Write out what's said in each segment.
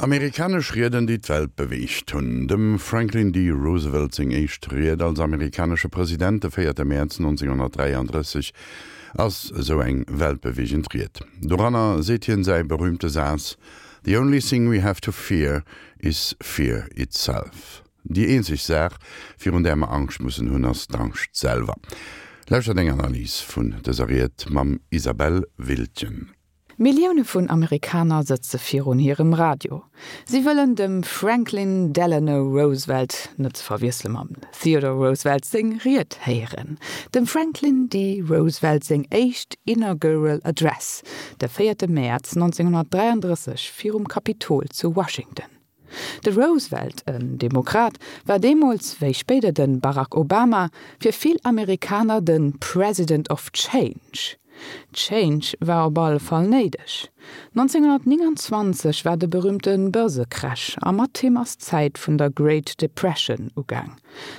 Amerikanesch Rieden, déi d'Welt beweegt hunn. Dem Franklin D. Roosevelt seng éischt Ried als amerikanesche President, de véierte Mäerz 1933, ass esou eng weltbeweegend Ried. Doranner seet hien säi berüümte Saz, The only thing we have to fear is fear itself. Déi eenzeg Saach, virun där mer Angscht mussen hunn, ass d'Angscht selwer. Lauschtert eng Analys vun dëser Ried mam Isabelle Wiltgen. Millioune vun Amerikaner sëtze virun hirem Radio. Si wëllen dem Franklin Delano Roosevelt, net ze verwiessele mam Theodore Roosevelt, seng Ried héieren. Dem Franklin D. Roosevelt seng éischt Inaugural Address, de véierte Mäerz 1933 virum Kapitol zu Washington. De Roosevelt, en Demokrat, war deemools, wéi spéider de Barack Obama, fir vill Amerikaner de President of Change. Change war op alle Fall néideg. 1929 war de berüümte Börsecrash a mat him ass d'Zäit vun der Great Depression ugaang.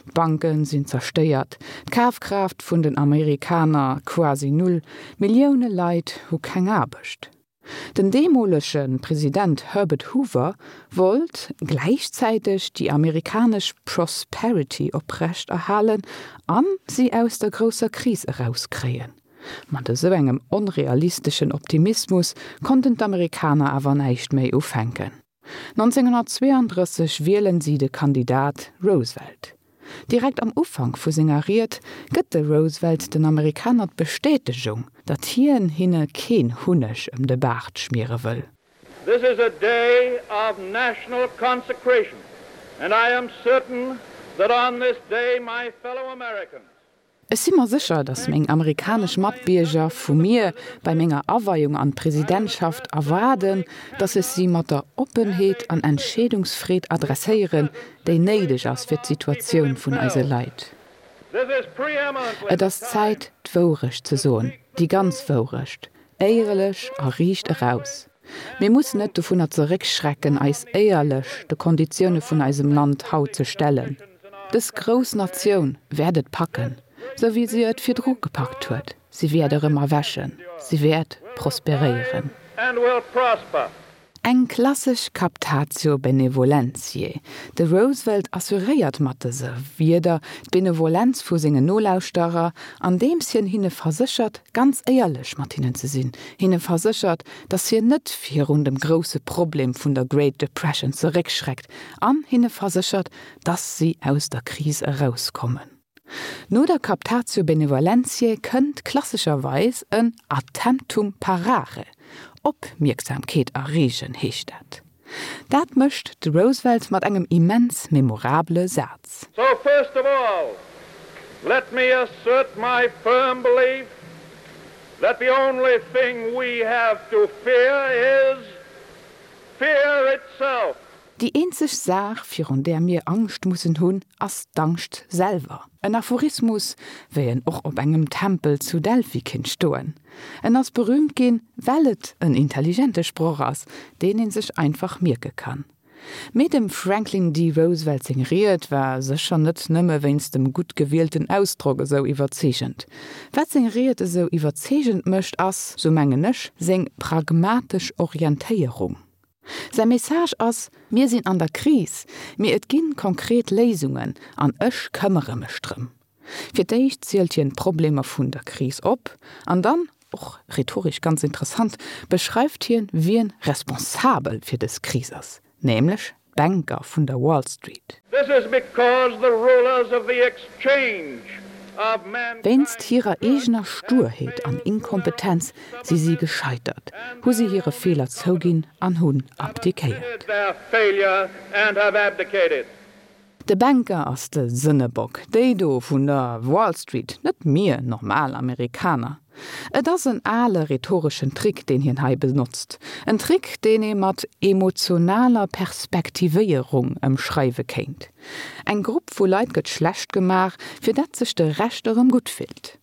D'Banke sinn zerstéiert, d'Kafkraaft vun den Amerikaner quasi null, Millioune Leit hu keng Aarbecht. Den deemolege President Herbert Hoover wollt gläichzäiteg déi amerikanesch Prosperity oprecht erhalen a si aus der grousser Kris erauskréien. Mat esou engem onrealisteschen Optimismus konnten d'Amerikaner awer näischt méi ufänken. 1932 wielen si de Kandidat Roosevelt. Direkt am Ufank vu senger Ried gëtt de Roosevelt den Amerikaner d'Bestätegung, datt hien hinne keen Hunneg ëm de Baart schmiere wëll. This is a day of national consecration, and I am certain that on this day my fellow Americans Ech si mer sécher, datt meng amerikanesch Matbierger vu mir bei menger Aweiung an d'Presidentschaft erwaarden, datt ech si mat der Oppenheet an Entscheedungsfreed adresséieren, déi néideg ass fir d'Situatioun vun eise Leit. Et ass Zäit, d'Wourecht ze soen, déi ganz Wourecht, éierlech a riicht eraus. Mir mussen net dovunner zeréckschrecken, eis éierlech de Konditioune vun eisem Land haut ze stellen. Dës grouss Natioun wäert et packen, sou wéi se et virdru gepackt huet. Si wäert erëm erwächen. Si wäert prosperéieren. Eng klassesch Captatio benevolentiae. De Roosevelt assuréiert mat dëse Wierder d'Benevolenz vu sengen Nolauschterer, andeems hien hinne verséchert, ganz éierlech mat hinnen ze sinn, hinne verséchert, datt hien net virun dem grousse Problem vun der Great Depression zeréckschreckt an hinne verséchert, datt si aus der Kris erauskommen. No der Captatio benevolentiae kënnt klassescherweis en Attemptum parare, Opmierksamkeet erreegen heescht dat. Dat mécht de Roosevelt mat engem immens memorabele Saz. So first of all, let me assert my firm belief that the only thing we have to fear is fear itself. Déi eenzeg Saach, virun där mir Angscht mussen hunn, ass d'Angscht selwer. En Aphorismus, wéi en och op engem Tempel zu Delphi kinnt stoen. En ass berüümt ginn, well et en intelligente Sproch ass, deen ee sech einfach mierke kann. Mee dem Franklin D. Roosevelt seng Ried war sécher net nëmme wéinst dem gutt gewielten Ausdrock esou iwwerzeegend. Wat seng Ried esou iwwerzeegend mécht, ass, sou mengen ech, seng pragmatesch Orientéierung. Säi Message ass, Mir sinn an der Kris, mee et gi konkret Léisungen an ech këmmere mech drëm. Fir d'éischt zielt hien d'Problemer vun der Kris op an dann, och rhetoresch ganz interessant, beschreift hien, wien responsabel fir dës Kris ass, nämlech d'Banker vun der Wall Street. This is because the rulers of the exchange of mankind's Wéinst hirer eegener Sturheet an Inkompetenz si si gescheitert, hu si hire Feeler zouginn an hunn abdiquéiert. De Banker ass de Sënnebock, déi do vun der Wall Street, net mir normal Amerikaner. Et ass en ale rhetoreschen Trick, deen hien hei benotzt. En Trick, deen ee mat emotionaler Perspektivéierung ëmschreiwe kéint. Eng Grupp vu Leit gëtt schlecht gemaach, fir dat sech de Rescht erëm gutt fillt.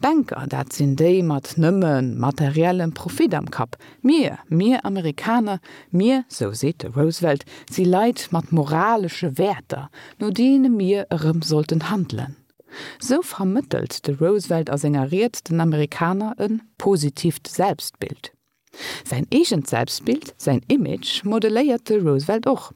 Banker, dat sinn déi mat nëmme materiellem Profit am Kapp. Mir, mir Amerikaner, mir, sou seet de Roosevelt, si Leit mat moralesche Wäerter, no deene mir erëm sollten handelen. Sou vermëttelt de Roosevelt a senger Ried den Amerikaner e positiivt Selbstbild. Säin eegent Selbstbild, säin Image, modeléiert de Roosevelt och.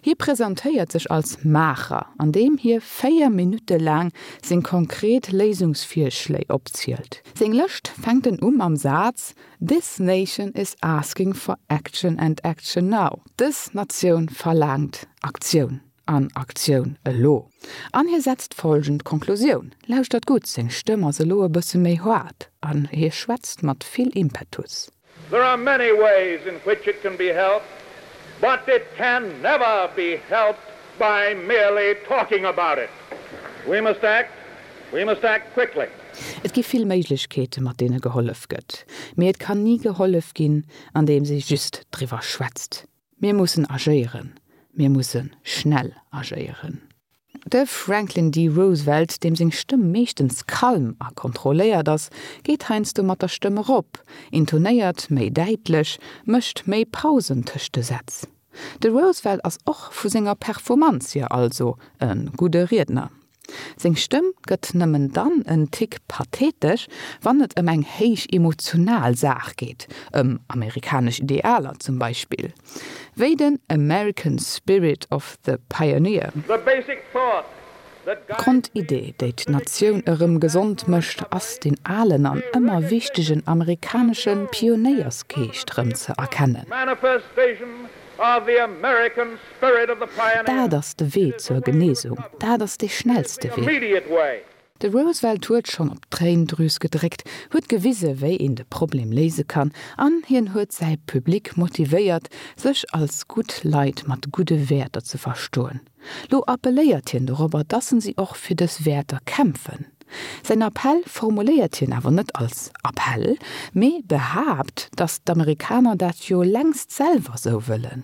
Hie presentéiert sech als Maacher, andeem hie 4 Minutte laang seng konkret Léisungsvirschléi opzielt. Seng Lëscht fänkt en u mam Saz This nation is asking for action and action now, Dës Natioun verlaangt Aktioun an Aktioun elo. An hie setzt folgend Konklusioun, lauschtert gutt, seng Stëmm ass elo e bësse méi haart an hie schwätzt mat vill Impetus. There are many ways in which it can be helped, but it can never be helped by merely talking about it. We must act, we must act quickly. Et gi vill Méiglechkeete mat deene gehollef gëtt, mee et kann ni gehollef ginn, andeems ee just driwwer schwätzt. Mir mussen agéieren, mir musse schnell agéieren. De Franklin D. Roosevelt, deem seng Stëmm meeschtens kalm a kontrolléiert ass, geet heiansdo mat der Stëmm erop, intonéiert méi däitlech, mécht méi Pausen tëscht de Sätz. De Roosevelt ass och vu senger Performanz hier also e gudde Riedner. Seng Stëmm gëtt nëmmen dann en Tick pathetesch, wann et ëm eng héich emotional Saach geet, ëm amerikanesch Idealer zum Beispill, wéi den American Spirit of the Pioneer. The basic thought that guides me. D'Grondidee, déi d'Natioun erëm gesond mécht, ass deen alen an ëmmer wichtegen amerikanesche Pionéiersgeescht rëm ze erkennen. Manifestation of the American Spirit of the Pioneer. Dat ass de Wee zur Genesung, dat ass dee schnellste Wee. De Roosevelt huet schonn op d'Tréindrüs gedréckt, huet gewise wéi een de Problem léise kann an hien huet säi Public motivéiert, sech als gutt Leit mat gudde Wäerter ze verstoen. Lo appelléiert hien dorobber, dass en si och fir dës Wäerter kämpfen. Säin Appell formuléiert hien awer net als Appell, mee behaapt, dass d'Amerikaner dat jo längst selwer sou wëllen.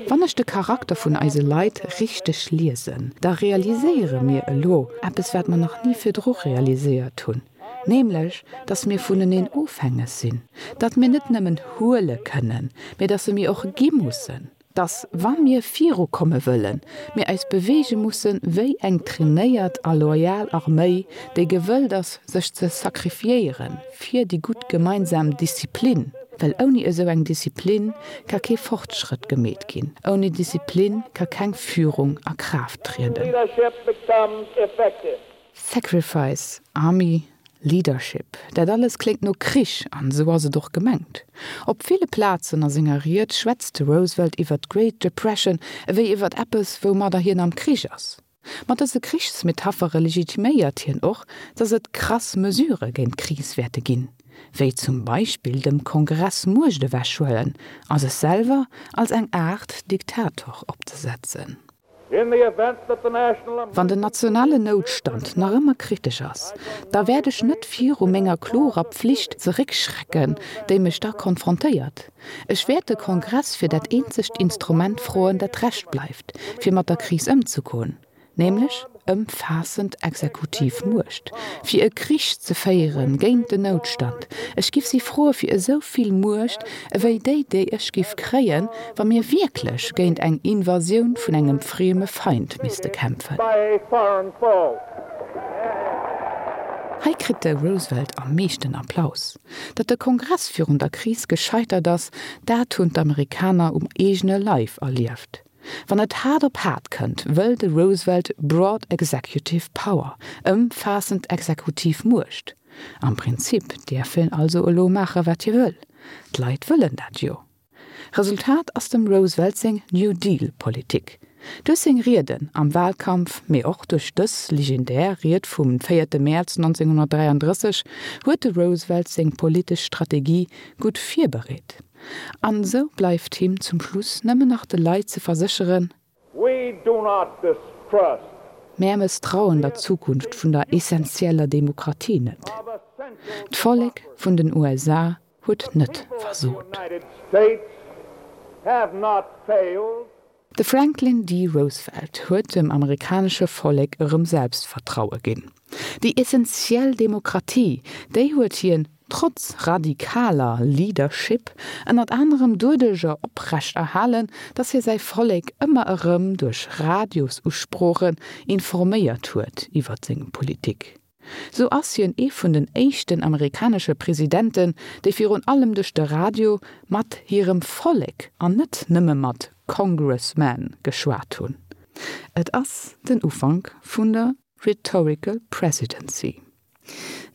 Wann ech de Charakter vun eise Leit richteg liesen, da realiséiere mir elo eppes, wat mer nach ni virdru realiséiert hunn, nämlech datt mir vuneneen ofhängeg sinn, datt mir net nëmmen huele kënnen, mee datt mir och gi mussen. Dass, wa mir virukomme wëllen, mir eis beweege musse wéi eng trainéiert a loyal Arméi, déi gewëllt ass, sech ze sacrifiéiere fir déi gutt gemeinsam Disziplin, well ouni esou eng Disziplin ka kee Fortschrëtt gemeet ginn, ouni Disziplin ka keng Führung a Kraaft trieden. Sacrifice, Army, Leadership, dat alles kléngt no Krich, an esou ass et och gemengt. Op ville Plazen a senger Ried schwätzt de Roosevelt iwwer d'Great Depression ewéi iwwer eppes, woumadder hien am Krich ass. Mat dëse Krichsmetaphere legitiméiert hien och, datt et krass Mesurë géint d'Kris wäerte ginn, wéi zum Beispill dem Kongress Muecht ewechhuelen a sech selwer als eng Aart Diktator opzesetzen. Wann den nationalen Noutstand nach ëmmer kritesch ass, da wäert ech net viru menger klorer Pflicht zeréckschrecken, déi mech da konfrontéiert. Ech wäert de Kongress fir dat eenzegt Instrument froen, dat Recht bleift, fir mat der Kris ëmzegoen, nämlech ëmfaassend exekutiv Muecht, fir e Krich ze féiere géint den Noutstand. Ech giff si froe fir esou vill Muecht ewéi déi, déi ech giff kréien, wa mir wierklech géint eng Invasioun vun engem frieme Feind misste kämpfen. Hei kritt de Roosevelt am meeschten Applaus. Datt de Kongress virun der Kris gescheitert ass, dat hunn d'Amerikaner um eegene Leif erlieft. Wann et haart op haart kënnt, wëll de Roosevelt broad executive power, ëmfaassend exekutiv Muecht. Am Prinzip däerf hien also elo maache wat hie wëll. D'Leit wëllen dat jo. Resultat ass dem Roosevelt seng New Deal Politik. Duerch seng Rieden am Wahlkampf, mee och duerch dës legendär Ried vum véierte Mäerz 1933 huet de Roosevelt seng politesch Strategie gutt virbereet. An esou bleift him zum Schluss nëmmen nach de Leit ze versécheren, We do not distrust. Mär mësstrauen der Zukunft vun der essentieller Demokratie net. D'Vollek vun den USA huet net versot. De Franklin D. Roosevelt huet dem amerikanesche Vollek erëm Selbstvertraue ginn. Déi essentiell Demokratie, déi huet hien, trotz radikaler Leadership, ënnert anerem doduercher oprecht erhalen, datt hie säi Vollek ëmmer erëm duerch Radiosusproochen informéiert huet iwwer seng Politik. Sou ass hien ee vun den éischten amerikanesche Presidenten, déi virun allem duerch de Radio mat hirem Vollek an net nëmme mat Congressmen geschwat hunn. Et ass den Ufank vun der Rhetorical Presidency.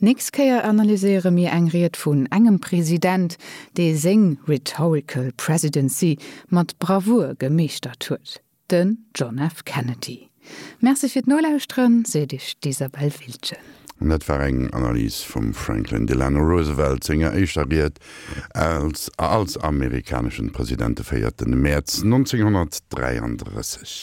Nächst Kéier analyséiere mir eng Ried vun engem President, dee seng Rhetorical Presidency mat Bravour gemeeschtert huet, den John F. Kennedy. Merci fir d'Nolauschteren, seet Iech d'Isabel Wiltgen. An dat war eng Analys vum Franklin Delano Roosevelt senger éischter Ried als als amerikaneschen President de 4 Mäerz 1933.